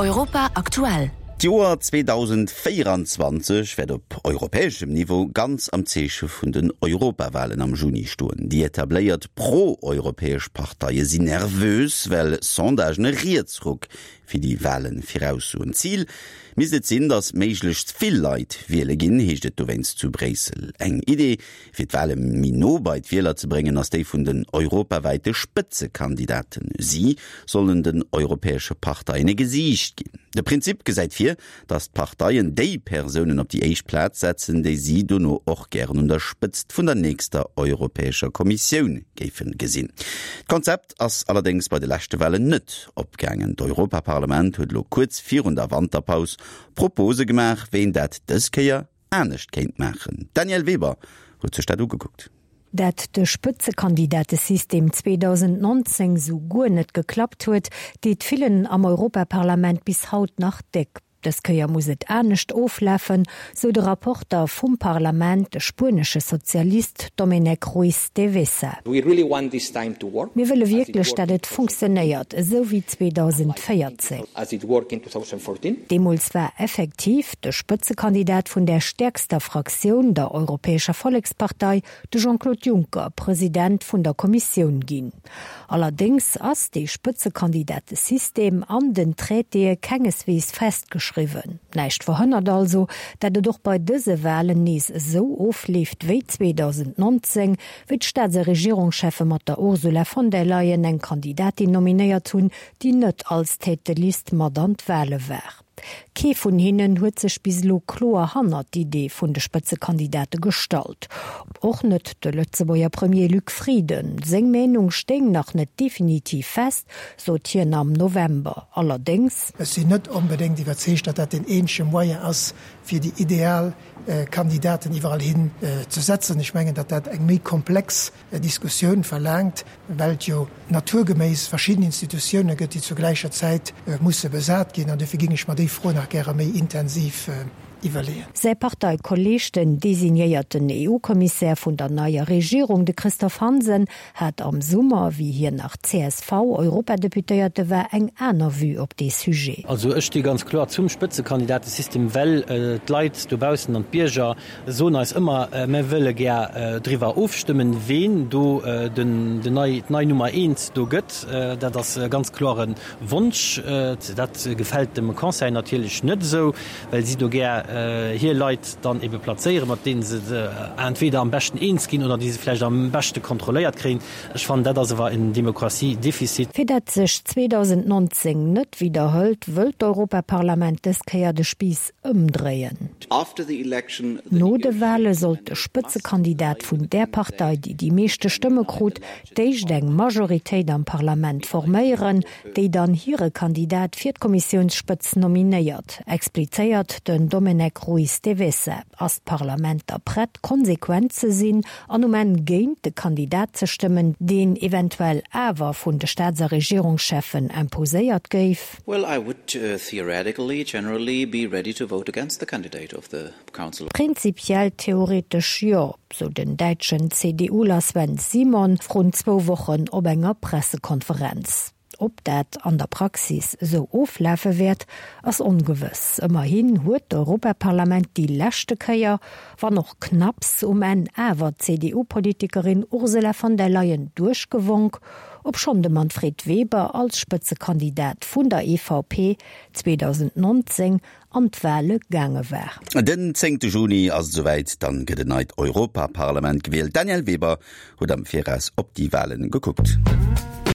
Europa aktuell. D'Joer 2024 wäert op europäeschem Niveau ganz am Zeeche vun den Europawalen am Juni stoen. Déi etabléiert pro-europäesch Parteie sinn nervös, well Sondagen e Rietsruck fir déi Wale viraussoen. Zil misst et sinn, datt méiglechst vill Leit wiele ginn, heescht et dowéinst zu Bréissel. Eng Idee, Fir d'Wale méi no bei d'Wieler ze bréngen, ass déi vun den europawäite Spëtzekandidaten. Si sollen den europäesche Parteien e Gesiicht ginn. De Prinzip gesäit vir, datt d'Parteien déi Persounen op déi éischt Plaz setzen, déi si dono och gären un der Spëtzt vun der nächster Europäescher Kommissioun géife gesinn. D'Konzept ass allerdéngs bei de leschte Walen net opgaangen. D'Europaparlament huet elo kuerz virun der Wanterpaus Propose gemaach, wéi een dat dës Kéier anescht kéint maachen. D'Danièle Weber huet sech dat ugekuckt. Dat de Spëtzekandidatesystem 2019 sou guer net geklappt huet, deet villen am Europaparlament bis haut nach déck. Dës Kéier muss et anescht oflafen, sou de Rapporter vum Parlament, de spuenesche Sozialist Domènec Ruiz de Vesa. Mir wëlle wierklech, dat et funktionéiert, esou wéi 2014. Deemools war effektiv de Spëtzekandidat vun där stäerkster Fraktioun, der Europäescher Vollekspartei, de Jean-Claude Juncker, President vun der Kommissioun ginn. Allerdéngs ass dee Spëtzekandidatesystem an den Traitéë kengeswees festgeschriwwen. Näischt verhënnert also, dat et och bei dëse Walen nees esou ofleeft wéi 2019, wéi d'Staats a Regierungscheffe mat der Ursula von der Leyen eng Kandidatin nominéiert hunn, déi net als Tête de liste mat an d'Wale war. Kee vun hinnen huet sech bis elo kloer hannert d'Idee vun de Spëtzekandidate gestallt. Och net de Lëtzebuerger Premier Luc Frieden. Seng Meenung stéing nach net definitiv fest, sot hien am November. Allerdéngs. Ech sinn net onbedéngt iwwerzeegt, datt dat deen eenzege Moyen ass, fir déi ideal Kandidaten iwwerall hin ze setzen. Ech mengen, datt dat eng méi komplex Diskussioun verlaangt, well et jo naturgeméiss verschidden Institutioune gëtt, déi zur gläicher Zäit musse besat ginn. An dofir géing ech mer déi Fro nach gäre méi intensiv iwwerleeën. Säi Parteikolleeg, den designéierten EU-Kommissär vun der neier Regierung, de Christophe Hansen, hat am Summer, wéi hien nach CSV-Europadeputéierte war, eng aner Vue op dee Sujet. Also ech sti ganz kloer zum Spëtzekandidatesystem, well d'Leit dobaussen an d'Bierger soen eis ëmmer, mir wëlle gär driwwer ofstëmmen, ween do den nei, d'nei Nummer eent do gëtt. Dat ass e ganz klore Wonsch. Dat gefält dem Conseil natierlech net esou, well si do gär hir Leit dann ebe plazéieren, mat deene se entweder am beschten eens ginn oder déi se vläicht am beschte kontrolléiert kréien. Ech fannen, dat ass awer en Demokratiedefizit. Fir dat sech 2019 net widderhëlt, wëllt d'Europaparlament dës Kéier de Spiiss ëmdréien. No de Wale sollt de Spëtzekandidat vun där Partei, déi déi meeschte Stëmme krut, d'éischt eng Majoritéit am Parlament forméieren, déi dann hire Kandidat fir d'Kommissiounsspëtz nominéiert, explizéiert den Domènec Ruiz de Vesa. Ass d'Parlament da prett, konsequent ze sinn an um Enn géint de Kandidat ze stëmmen, deen eventuell awer vun de Staats a Regierungscheffen imposéiert géif? Well, I would theoretically generally be ready to vote against the candidate of the Council. Prinzipiell theoretesch jo, sou den däitschen CDUler Sven Simon vrun zwou Wochen op enger Pressekonferenz. Ob dat an der Praxis esou oflafe wäert, ass ongewëss. Ëmmerhin huet d'Europaparlament déi leschte Kéier, wann och knapps, um Enn awer d'CDU-Politikerin Ursula von der Leyen duerchgewonk, obschonn de Manfred Weber als Spëtzekandidat vun der EVP 2019 an d'Wale gaange war. Den zéngte Juni ass et esouwäit, dann gëtt en neit Europaparlament gewielt. D'Danièle Weber huet am Viraus op déi Walen gekuckt.